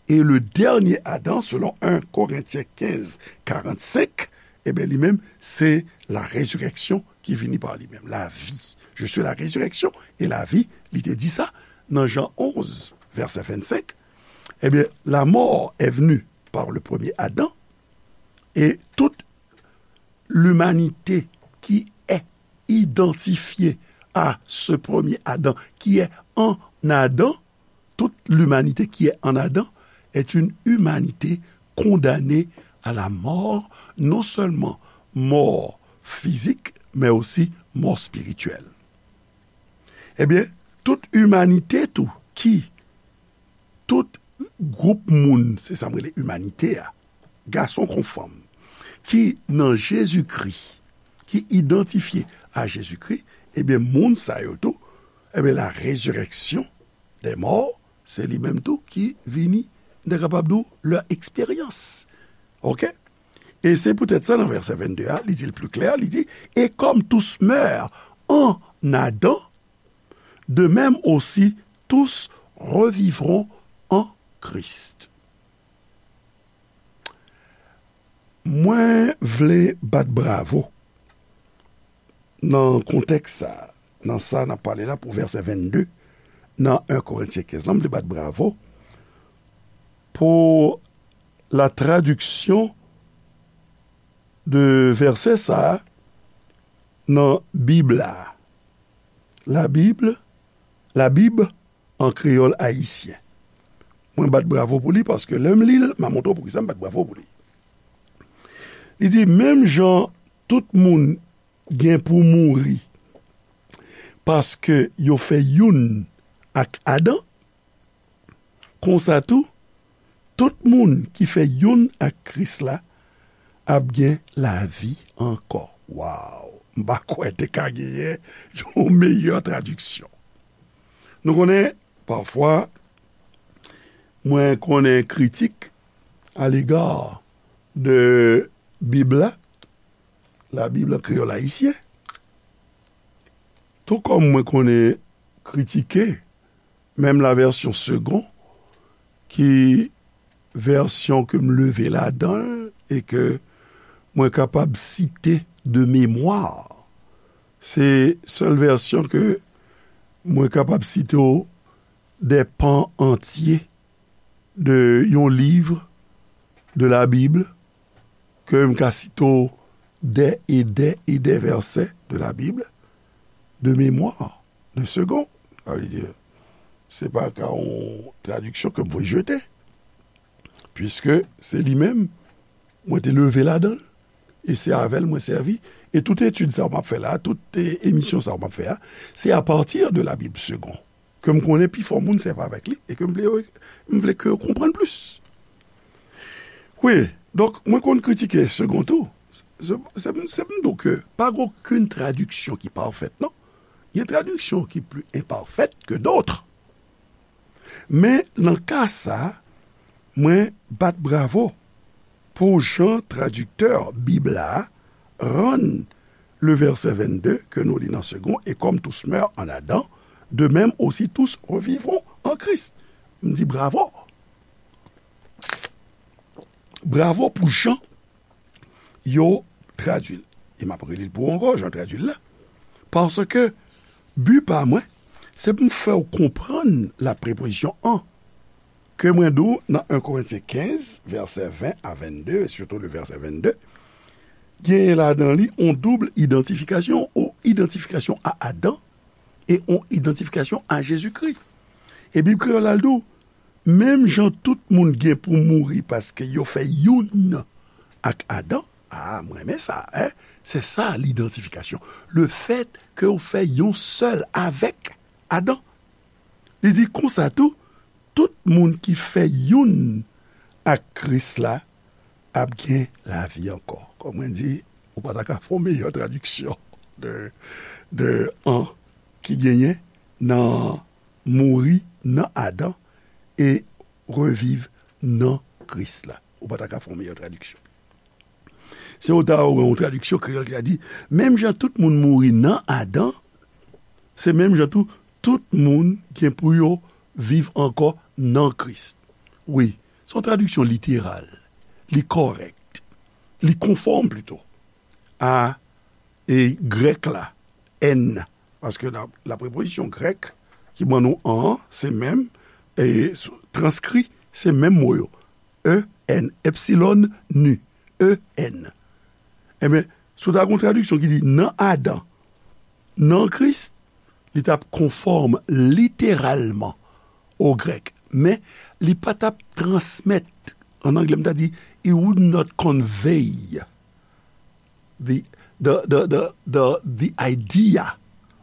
et le dernier Adam, selon un Corinthiens quinze, quarante-cinq, ebyen, li menm, se la résurrection ki vini pa li menm, la vi. Je suis la résurrection et la vie, li te di sa nan Jan onz, vèsè vennsenk. Ebyen, la mort est venue par le premier Adam, et toute l'humanité qui est identifiée à ce premier Adam, qui est en Adam, toute l'humanité qui est en Adam est une humanité condamnée à la mort, non seulement mort physique, mais aussi mort spirituelle. Ebyen, tout imanite tou, ki, tout gwoup moun, se sa m rele imanite a, gason kon fanm, ki nan Jezikri, ki idantifye a Jezikri, ebyen, moun sa yo tou, ebyen, la résurrection des morts, se li menm tou ki vini, m ta kapab di w, leur expérience. Ok? E se poutèt sa, nan vèsè vennde a, li di l pli klè, li di, et comme tous meurent en Adam, de même aussi tous revivront en Christ. Mwen vle bat bravo nan kontèks sa, nan sa n ap pale la pou vèsè vennde nan en Korentyen kenz lan, m vle bat bravo pou la traduction de vèsè sa nan Bib la. La Bible, la Bible en créole haïtien. Mwen bat bravo pou li paske lè m li l, m a montre w poukisa m bat bravo pou li. Li di, menm jan tout moun gen pou mouri paske yo fè youn ak Adan, konsa tou, tout moun ki fè youn ak Kris la ap gen lavi ankò. Waw! M pa kwè te ka genyen yon meyè tradiksyon. Nou konnen, pafwa, mwen konnen kritik alega de Bib la, la Bible en créole haïtien, tou kòm mwen konnen kritike menm la version Segond, ki vèsyon ke m leve ladan l e ke mwen kapab site de memwa. Se sèl vèsyon ke mwen kapab site w de pan antye de yon liv de la Bible ke m ka site w dè e dè e dè vèsè de la Bible de memwa, de Segond. Sa vle di, se pa ka yon tradiksyon ke m voye jete, piske se li menm mwen te leve ladan l, e se avè l mwen sèvi. E tout etid sa yo m ap fè la, tout, e, emisyon sa yo m ap fè a, se apati de la Bible Segond ke m konnen pifò moun sèvi avèk li e ke m vle yo, m vle ke yo konprann plis. Wi, donk, mwen konn kritike Segond tou. Se, se, se m di w ke pa gen okenn tradiksyon ki pafèt, non. Gen tradiksyon ki pli enpafèt ke dòt. Men, nan ka sa, mwen bat bravo pou jan tradiktè Bib la rann le vèsè vennde ke nou li nan Segond, et comme tous meurent en Adam, de même aussi tous revivront en Christ. M di bravo. Bravo pou jan yo tradui l. E m ap reli l pou ou ankò, jan tradui l la. Paske bi pa mwen, se pou m fè w konprann la prepozisyon an. Ke mwen di w nan en Korentyen kenz, vèsè ven a vennde, e sitou le vèsè vennde, genyen ladan li on doub idantifikasyon, on idantifikasyon a Adan e on idantifikasyon a Jezikri. E Bib Kreyòl la, l di w, menm jan tout moun gen pou mouri paske yo fè youn ak Adan, a, mwen renmen sa, en, se sa lidantifikasyon. Le fèt ke w fè yon sèl avèk Adan. Li di konsa tou, tout moun ki fè youn ak Kris la ap gen lavi ankò. Kòm mwen di, ou pa ta ka fè yon meyè tradiksyon de, de an ki genyen nan mouri nan Adan e reviv nan Kris la. Ou pa ta ka fè yon meyè tradiksyon. Se ou ta wè yon tradiksyon kreyòl ki ta di, menm jan tout moun mouri nan Adan, se menm jan tou, tout moun gen pou yo viv ankò nan Kris. Wi, se yon tradiksyon literal. Li kòrèk. Li konfòm plito a, e, grèk la, èn. Paske la, la prepozisyon grèk ki ban nou an, se menm, e, sou, transkri, se menm mo yo. E N, epsilon, nu, E N. Ebyen, si w ta gen yon tradiksyon ki di nan Adan, nan Kris, li t ap konfòm literalman o grèk. Men, li pa t ap transmèt, an anglè, m ta di, it would not convey the, the, the, the, the, the idea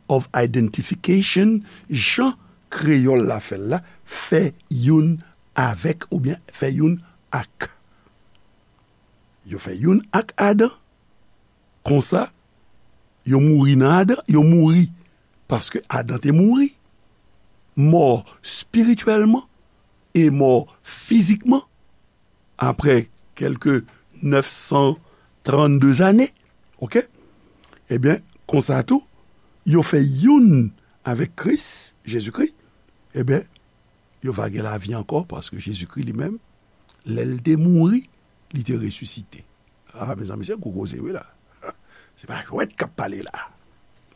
of identification, jan kreyòl la fè l la, fè youn avèk oubyen fè youn ak. Yo fè youn ak Adan. Konsa, yo mouri nan Adan, yo mouri paske Adan te mouri. Mò espirityèlman e mò fizikman, apre kèlke nèf san trannde zane, oke? Ebyen, konsa tou, yo fè youn avèk Kris, Jezikri, ebyen, yo va gen lavi ankò, paske Jezikri li menm, lè l te mouri, li te resisite. A, mezanmi, se gwo koze, wi, la. Se pa jwèt k ap pale la.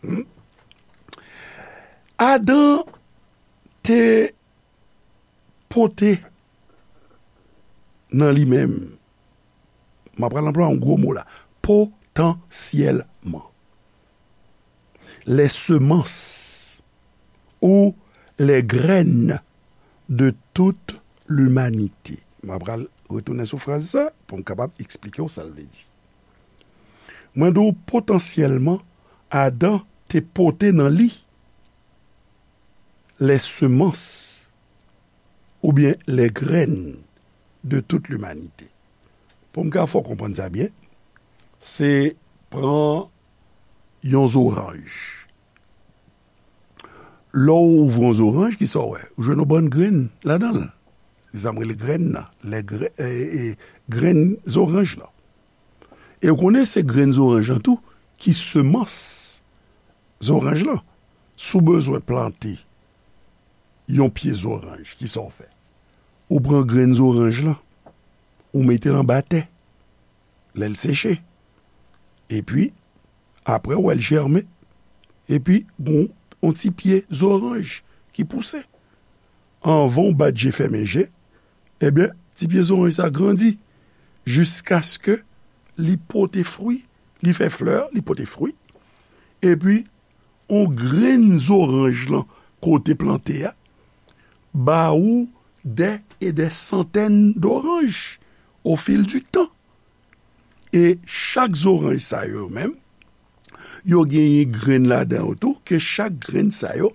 Hmm? Adan te pote nan li menm, m ap pral anplwaye yon gwo mo la, potansyèlman. Les semences ou les graines de toute l'humanité. M ap pral retounen sou fraz sa pou m kapab eksplike w sa l vle di. Mwen di w potansyèlman, Adan te pote nan li les semences oubyen les graines de toute l'humanité. Pou m ka fè w konprann sa byen, se pran yon zoranj. Lè w ouvri yon zoranj, kisa w wè? Ou jwenn yon bann grenn ladan l. Se sa m rele grenn nan. Lè gre-, e, e, grenn zoranj lan. E w konnen se grenn zoranj lan tou ki semans zoranj lan. Si w bezwen plante yon pye zoranj, kisa w fè? Ou pran grenn zoranj lan, ou mete l anba tè, lè l seche. Epi, apre, w wè l jèmen. Epi, gon yon ti pye zoranj ki pouse. Anvan w bat je fèmen je, ebyen, ti pye zoranj sa grandi jiskaske li pote fwi, li fè flè, li pote fwi. Epi, yon grenn zoranj lan kote plante a, ba ou dè e dè santèn doranj o fil di tan. E chak zoranj sa yo menm, yo genyen grenn ladan yo tou, ke chak grenn sa yo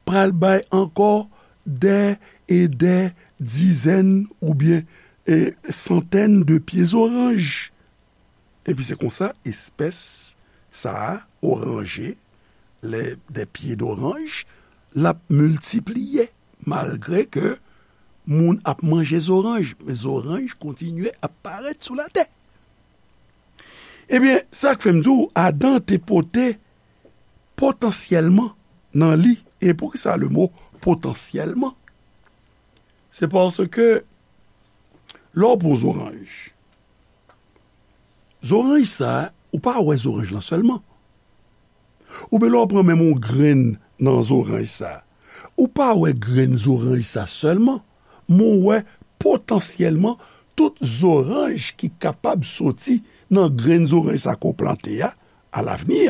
pral bay ankò dè e dè dizèn oubyen, e, santèn de pye zoranj. Epi se konsa, espès sa a, oranje, lè, dè pye doranj, l ap miltipliye, malgre ke moun ap manje zoranj, men zoranj kontinye ap parèt sou latè. Ebyen, sa k fè m di w, Adan te pote potansyèlman nan li. E poukisa le mo potansyèlman? Se paske lè w pran zoranj, zoranj sa, ou pa wè zoranj lan sèlman. Oubyen lè w pran menm yon grenn nan zoranj sa, ou pa wè grenn zoranj sa sèlman, men w wè potansyèlman tout zoranj ki kapab soti nan grenn zoranj sa ke w plante a, alavni.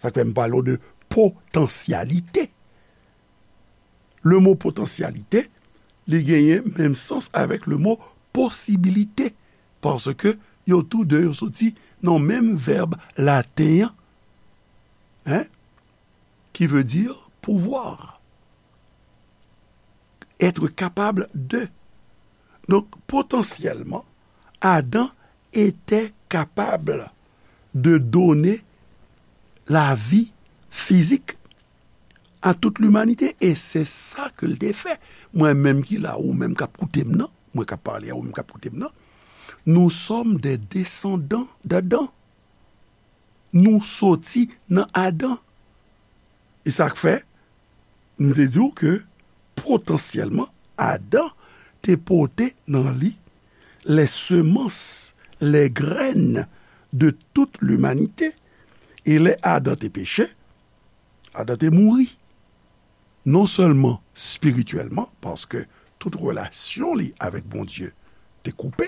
Sa k fè m pale w de potansyalite. Le mo potansyalite, li genyen menm sans avèk le mo posibilite, paske yo tou de yo soti nan menm vèb laten an, hein, qui veut dire pouvoir, être capable de. Donk, potansyèlman, Adan était capable de donner la vie physique à toute l'humanité. E se sa ke l te fè. Mwen menm ki la, ou menm k ap koute m nan, mwen k ap pale a ou menm k ap koute m nan, nous sommes des descendants d'Adam. Nou soti nan Adan. E sa k fè, m te di w ke potansyèlman, Adan te pote nan li les semences, les graines de toute l'humanité. E lè Adan te peche, Adan te mouri. Non sèlman espirityèlman, paske tout relasyon li avèk Bondye te koupe.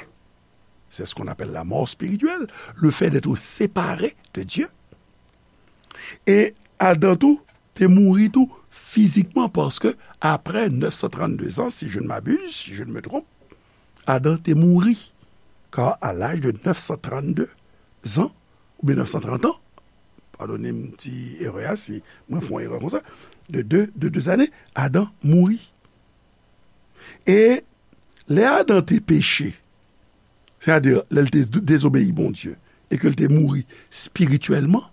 C'est ce qu'on appelle la mort spirituelle, le fait d'être séparé de Dieu. E Adan tou te mouri tou fizikman, paske apre neuf cent trente-deux ans, si je ne m'abuse, si je ne me trompe, Adan te mouri. Car à l'âge de neuf cent trente-deux ans, oubyen neuf cent trente ans, padone m ti erè a si mwen fè yon erè konsa, de de, de de zane, Adan mouri. E lè Adan te peche, sètadi lè l te dezobeyi Bondye, e ke l te mouri espirityèlman,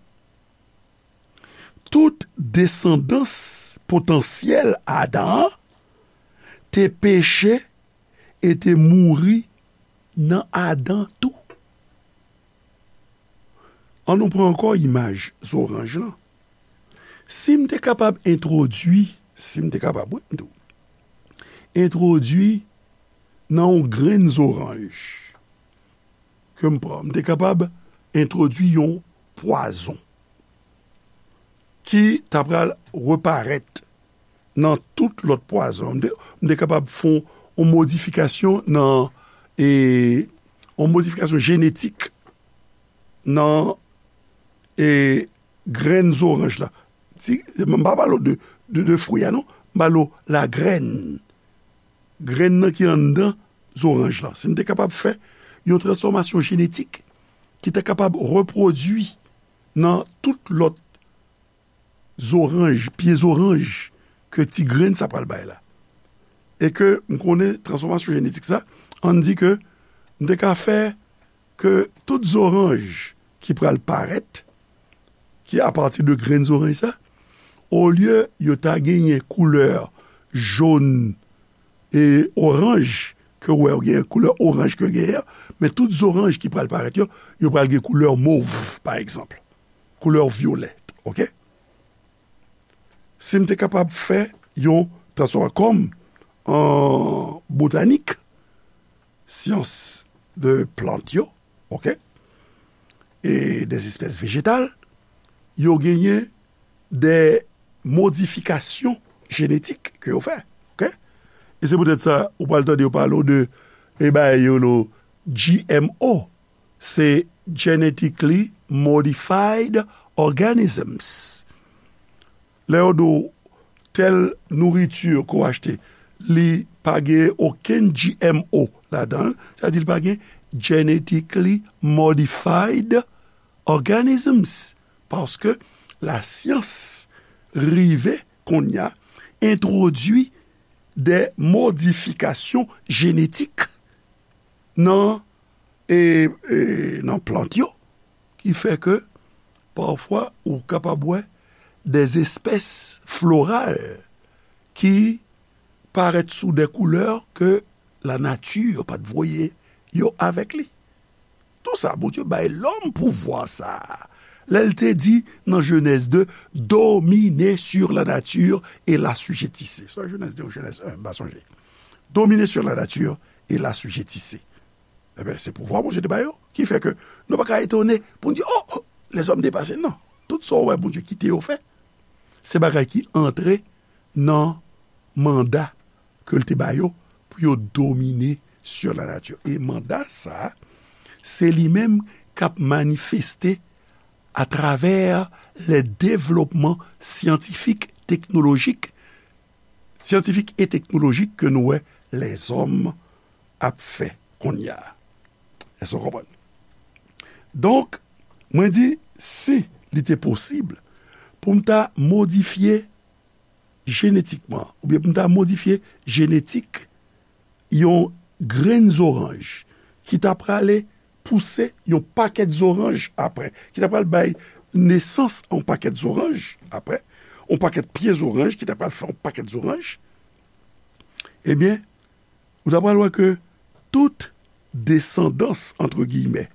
tout desandans potansyèl Adan an te peche e te mouri nan Adan tou. An nou pran ankò imaj zoranj lan. Si m te kapab entwodui, si m te kapab, wi, m di w, entwodui nan yon grenn zoranj ke m pran, m te kapab entwodui yon pwazon ki ta pral reparèt nan tout lòt pwazon. M te, m te kapab fè yon modifikasyon nan, e, yon modifikasyon jenetik nan, e, grenn zoranj la. Si, m pa pale w de, de, de fwi a, non. M pale w lagrèn. Grenn nan ki anndan zoranj la. Si m te kapab fè yon transfòmasyon jenetik ki ta kapab repwodui nan tout lòt zoranj, pye zoranj ke ti grenn sa pral bay la. E ke m konnen transfòmasyon jenetik sa, ann di ke m te ka fè ke tout zoranj ki pral parèt, ki apati de grenn zoranj sa, olye yo ta genyen koulè jòn e oranj, ke w wè yo genyen koulè oranj ke yo genyen an, men tout zoranj ki pral parèt yo, yo pral gen koulè mov, pa egzanp. Koulè vyolèt, oke? Si m te kapab fè yon transfòma-, kòm an botanik, syans de plant yo, oke? E des espèces végétales, yo genyen de modifikasyon jenetik ke yo fè, oke? E se poutèt sa, ou pral tande yo pale w de, e bagay yo lo G M O, se genetically modified organisms. Lè yo di w tèl nouriti ke w achte, li pa gen okenn G M O ladan l, sa vle di li pa gen genetically modified organisms, paske lasyans rive kounye a entwodui de modifikasyon jenetik nan, e, e, nan plant yo, ki fè ke pafwa ou kapab wè des espèces florales ki parèt sou de koulè ke lanati pa t voye yo avèk li. Tou sa, Bondye bay lòm pouvwa sa a. Lè l te di nan Jenèz de, dominer sur la nature et l'assujettissez. Swa Jenèz de ou Jenèz en, m pa sonje. Dominer sur la nature et l'assujettissez. Ebyen, se pouvwa Bondye te ba yo, ki fè ke nou pa ka etone pou n di, o, o, lèzòm depase. Non. Tout sa w wè Bondye kite yo fè, se bagay ki antre nan manda ke l te ba yo pou yo domine sur la nature. E manda sa a, se li menm k ap manifeste atravè le devlopman syantifik, teknolojik, syantifik e teknolojik ke nou wè lèzòm ap fè kounye a. Èske w konprann? Donk, mwen di, si li te posib pou m ta modifye jenetikman, oubyen pou m ta modifye jenetik yon grenn zoranj ki ta prale pouse yon pakèt zoranj apre, ki ta pral bay nesans a yon pakèt zoranj apre, yon pakèt pye zoranj ki ta pral fè yon pakèt zoranj, ebyen, ou ta pral wè ke tout desandans, antre giyimè,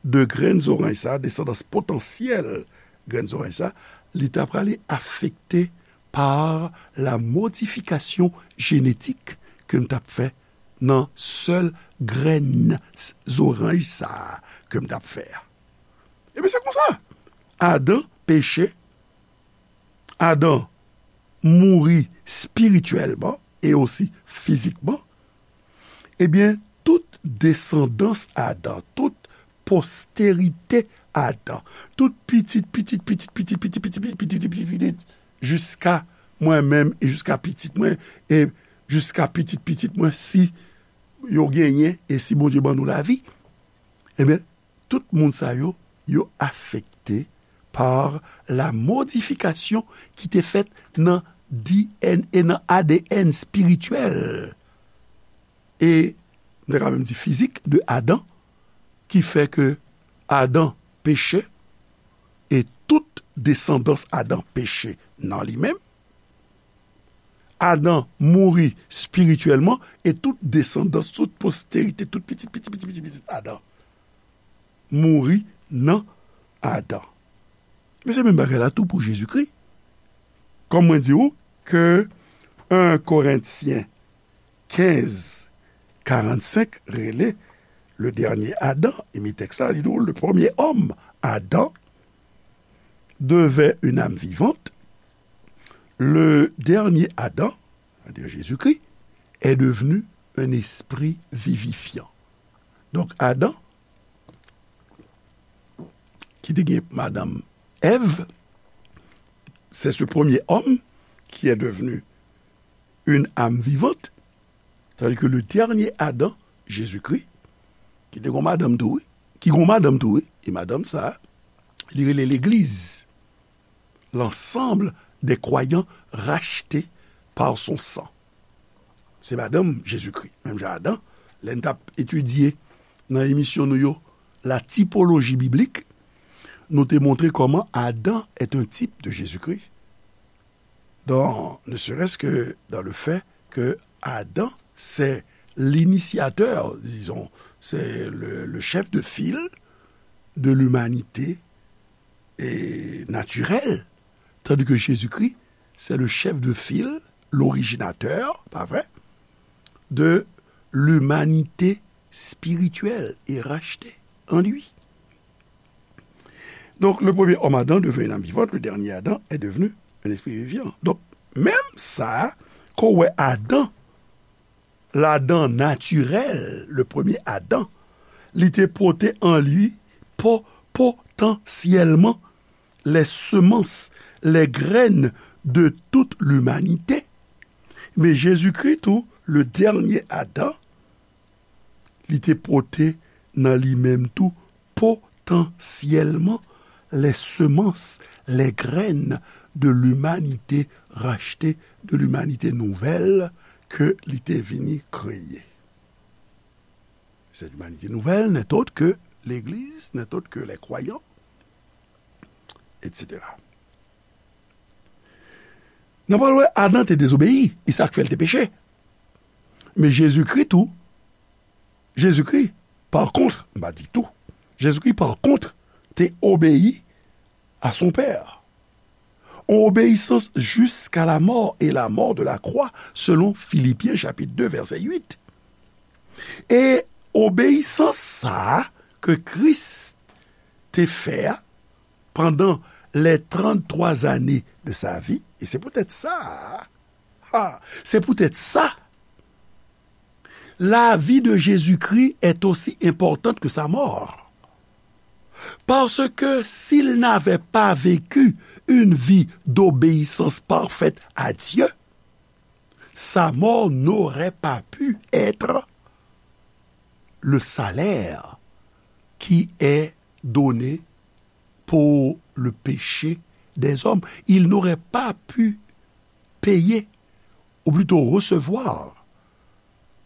de grenn zoranj sa, desandans potansyèl grenn zoranj sa, li ta prale afekte par la modifikasyon jenetik ke m t ap fè nan sèl grenn s-, zoranj sa a ke m t ap fè a. Ebyen, se konsa. Adan peche, Adan mouri espirityèlman e osi fizikman, ebyen, tout desandans Adan, tout posterite Adan, tout pitit, pitit, pitit, pitit, pitit, pitit, pitit, pitit, pitit, jiska mwen menm e jiska pitit mwen, e jiska pitit, pitit mwen, si yo genyen, e si Bondye ban nou lavi, ebyen, tout moun sa yo, yo afekte par la modifikasyon ki te fèt nan D N A, nan A D N espirityèl. E, m ta ka menm di fizik de Adan, ki fè ke Adan peche, e tout desandans Adan peche nan li menm. Adan mouri espirityèlman, e tout desandans, tout posterite, tout pitit, pitit, pitit, pitit, pitit Adan mouri nan Adan. Men se menm bagay la tou pou Jezikri. Kòm mwen di w ke en Korentyen kenz karannsenk rele le dernier Adam, e mi tèks la, li di w, le premier homme, Adam, devint une âme vivante, le dernier Adam, c'est-à-dire Jésus-Christ, est devenu un esprit vivifiant. Donk, Adan, ki te gen madanm Èv, c'est ce premier homme qui est devenu une âme vivante, tandis que le dernier Adam, Jésus-Christ, ki te gon madanm tou, wi, ki gon madanm tou, wi, e madanm sa, li rele legliz, l'ensemble des croyants rachetés par son sang. Se madanm Jezikri, menm jan Adan, lè n t ap etidye nan emisyon nou yo, la typologie biblique, nou te montre comment Adam est un type de Jésus-Christ. Dans, ne serait-ce que dans le fait que Adam, c'est l'initiateur, disons, c'est le, le chef de file de l'humanité et naturelle, tandis que Jésus-Christ, c'est le chef de file, l'originateur, pa vre, de l'humanité spirituelle et rachetée en lui. Donc, le premier homme Adam devint une âme vivante, le dernier Adam est devenu un esprit vivant. Donk, menm sa, ke w wè Adan, ladan natirèl, le premier Adam, li te pote an li po-, potansyèlman les semences, les graines de toute l'humanité. Men Jezikri tou, le dernier Adam, li te pote nan li menm tou potansyèlman les semences, les graines de l'humanité rachetée, de l'humanité nouvelle ke li te vini kreye. Cette humanité nouvelle n'est autre que l'Église, n'est autre que les croyants, et cetera. N ap wè Adan te dezobeyi, e sa k fè l te peche. Men Jezikri tou, Jezikri, pa kont, m pa di tou, Jezikri, pa kont, te obeyi à son Père. En obéissance jusqu'à la mort et la mort de la croix, selon Philippiens chapitre deux, verset huit. E obeyisans sa a ke Kris te fè a pandan les trente-trois années de sa vie, e se poutèt sa, ha, se poutèt sa, la vie de Jésus-Christ est aussi importante que sa mort. Parce que s'il n'avait pas vécu une vie d'obéissance parfaite à Dieu, sa mort n'aurait pas pu être le salaire qui est donné pour le péché des hommes. Il n'aurait pas pu payer, ou plutôt recevoir,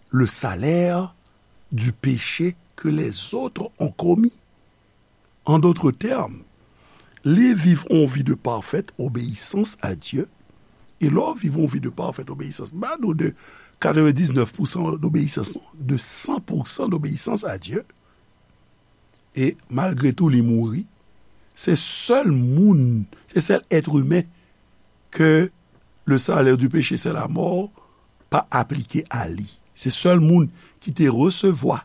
le salaire du péché que les autres ont commis. En d'autres termes, li viv yon vi de parfaite obéissance à Dieu. E lè w viv yon vi de parfaite obéissance, m pa di w de katrevendisnèf pousan d'obéissance, non, de san pousan d'obéissance à Dieu. E malgre tou, li mouri. Se sèl moun, se sèl être humain que le salaire du péché, c'est la mort, pa aplike a li. Se sèl moun ki te resevwa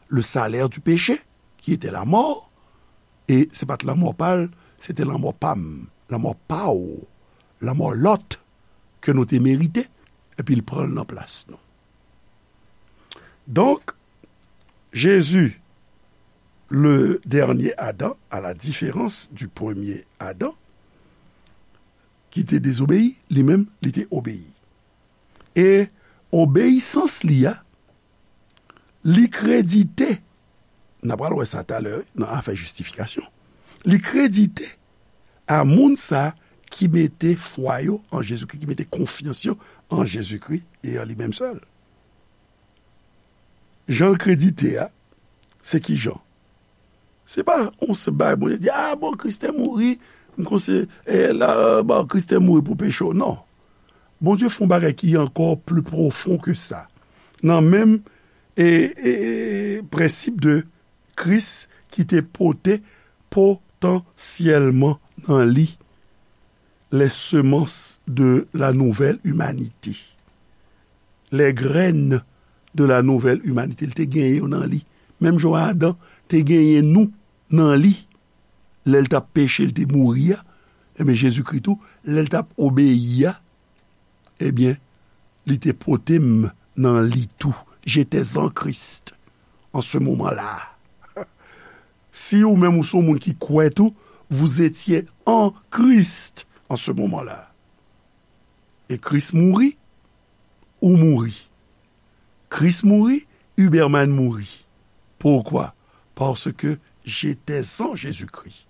le salaire du péché, qui était la mort, e se pa t lanmò pa l, se te lanmò pa m, lanmò pa w, lanmò lòt ke nou te merite, epi l pran l nan plas nou. Donk, Jésus, le dernier Adam, à la différence du premier Adam, ki te dezobeyi, li menm, li te obeyi. E obeyisans li a, li kredite, n a pral wè sa talè, wi, nan afè jistifikasyon. Li kredite a moun sa ki mete fwa yo an Jezikri, ki mete konfyans yo an Jezikri e an li menm sèl. Jan l kredite a, se ki jan? Se pa yon senp bagay Bondye di, "A, bon, Kris te mouri, m konsi, e, la, bon, Kris te mouri pou peche w." Non. Bondye fè yon bagay ki ankò pli pwofon ke sa. Nan menm, e, e, e, prensip de Kris ki te pote potansyèlman nan li les semences de la nouvelle humanité. Les graines de la nouvelle humanité. Li te genyen yo nan li. Menm jan Adan te genyen nou nan li. Lè l t ap peche, l te mouri a. Ebyen, Jezikri tou, lè l t ap obeyi a, ebyen, li te pote m nan li tou. J'étais en Christ en ce moment-là. Si ou menm ou se yon moun ki kwè tou, vous étiez en Christ en ce moment-là. E Kris mouri, ou mouri. Kris mouri, Huberman mouri. Pourquoi? Parce que j'étais en Jésus-Christ.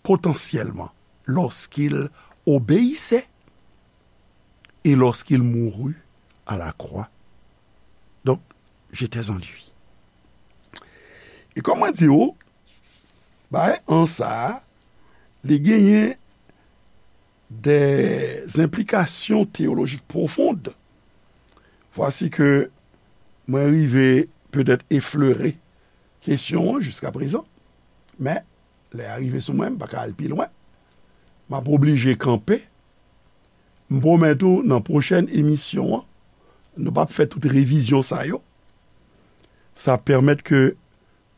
Potentiellement, lorsqu'il obéissait et lorsqu'il mourut à la croix. Donc, j'étais en lui. E kòm mwen di w, bay an sa a, li genyen des implications théologiques profondes. Vwasi ke mwen rive petèt eflere kesyon an jiskaprezan, men lè a rive sou mwen, m pa ka al pi lwen. M ap oblije kanpe. M pwomèt ou, nan pwochèn emisyon an, nou p ap fè tout revizyon sa yo. Sa pèmèt ke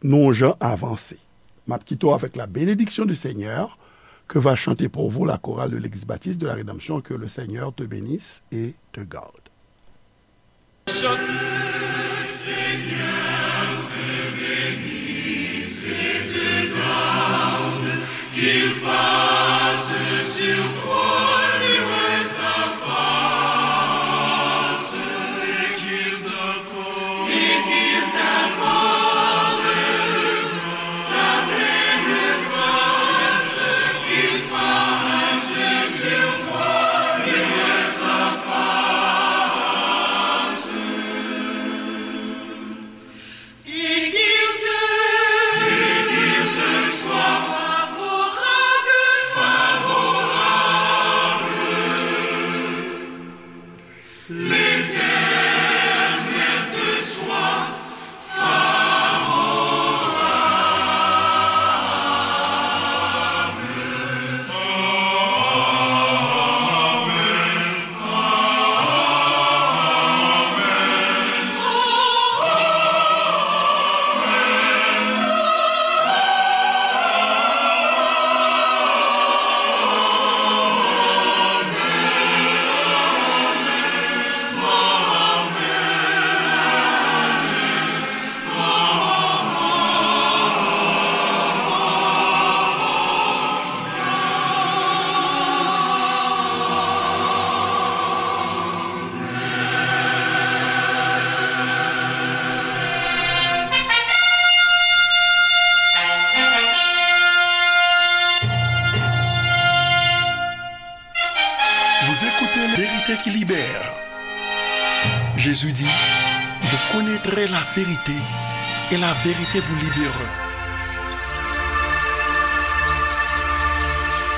nou jan avanse. M ap kite w avec la bénédiction du Seigneur que va chanter pour vous la chorale de l'Église baptiste de la Rédemption. Que le Seigneur te bénisse et te garde. Vous écoutez La Vérité qui libère. Jésus dit, vous connaîtrez la vérité et la vérité vous libérerez.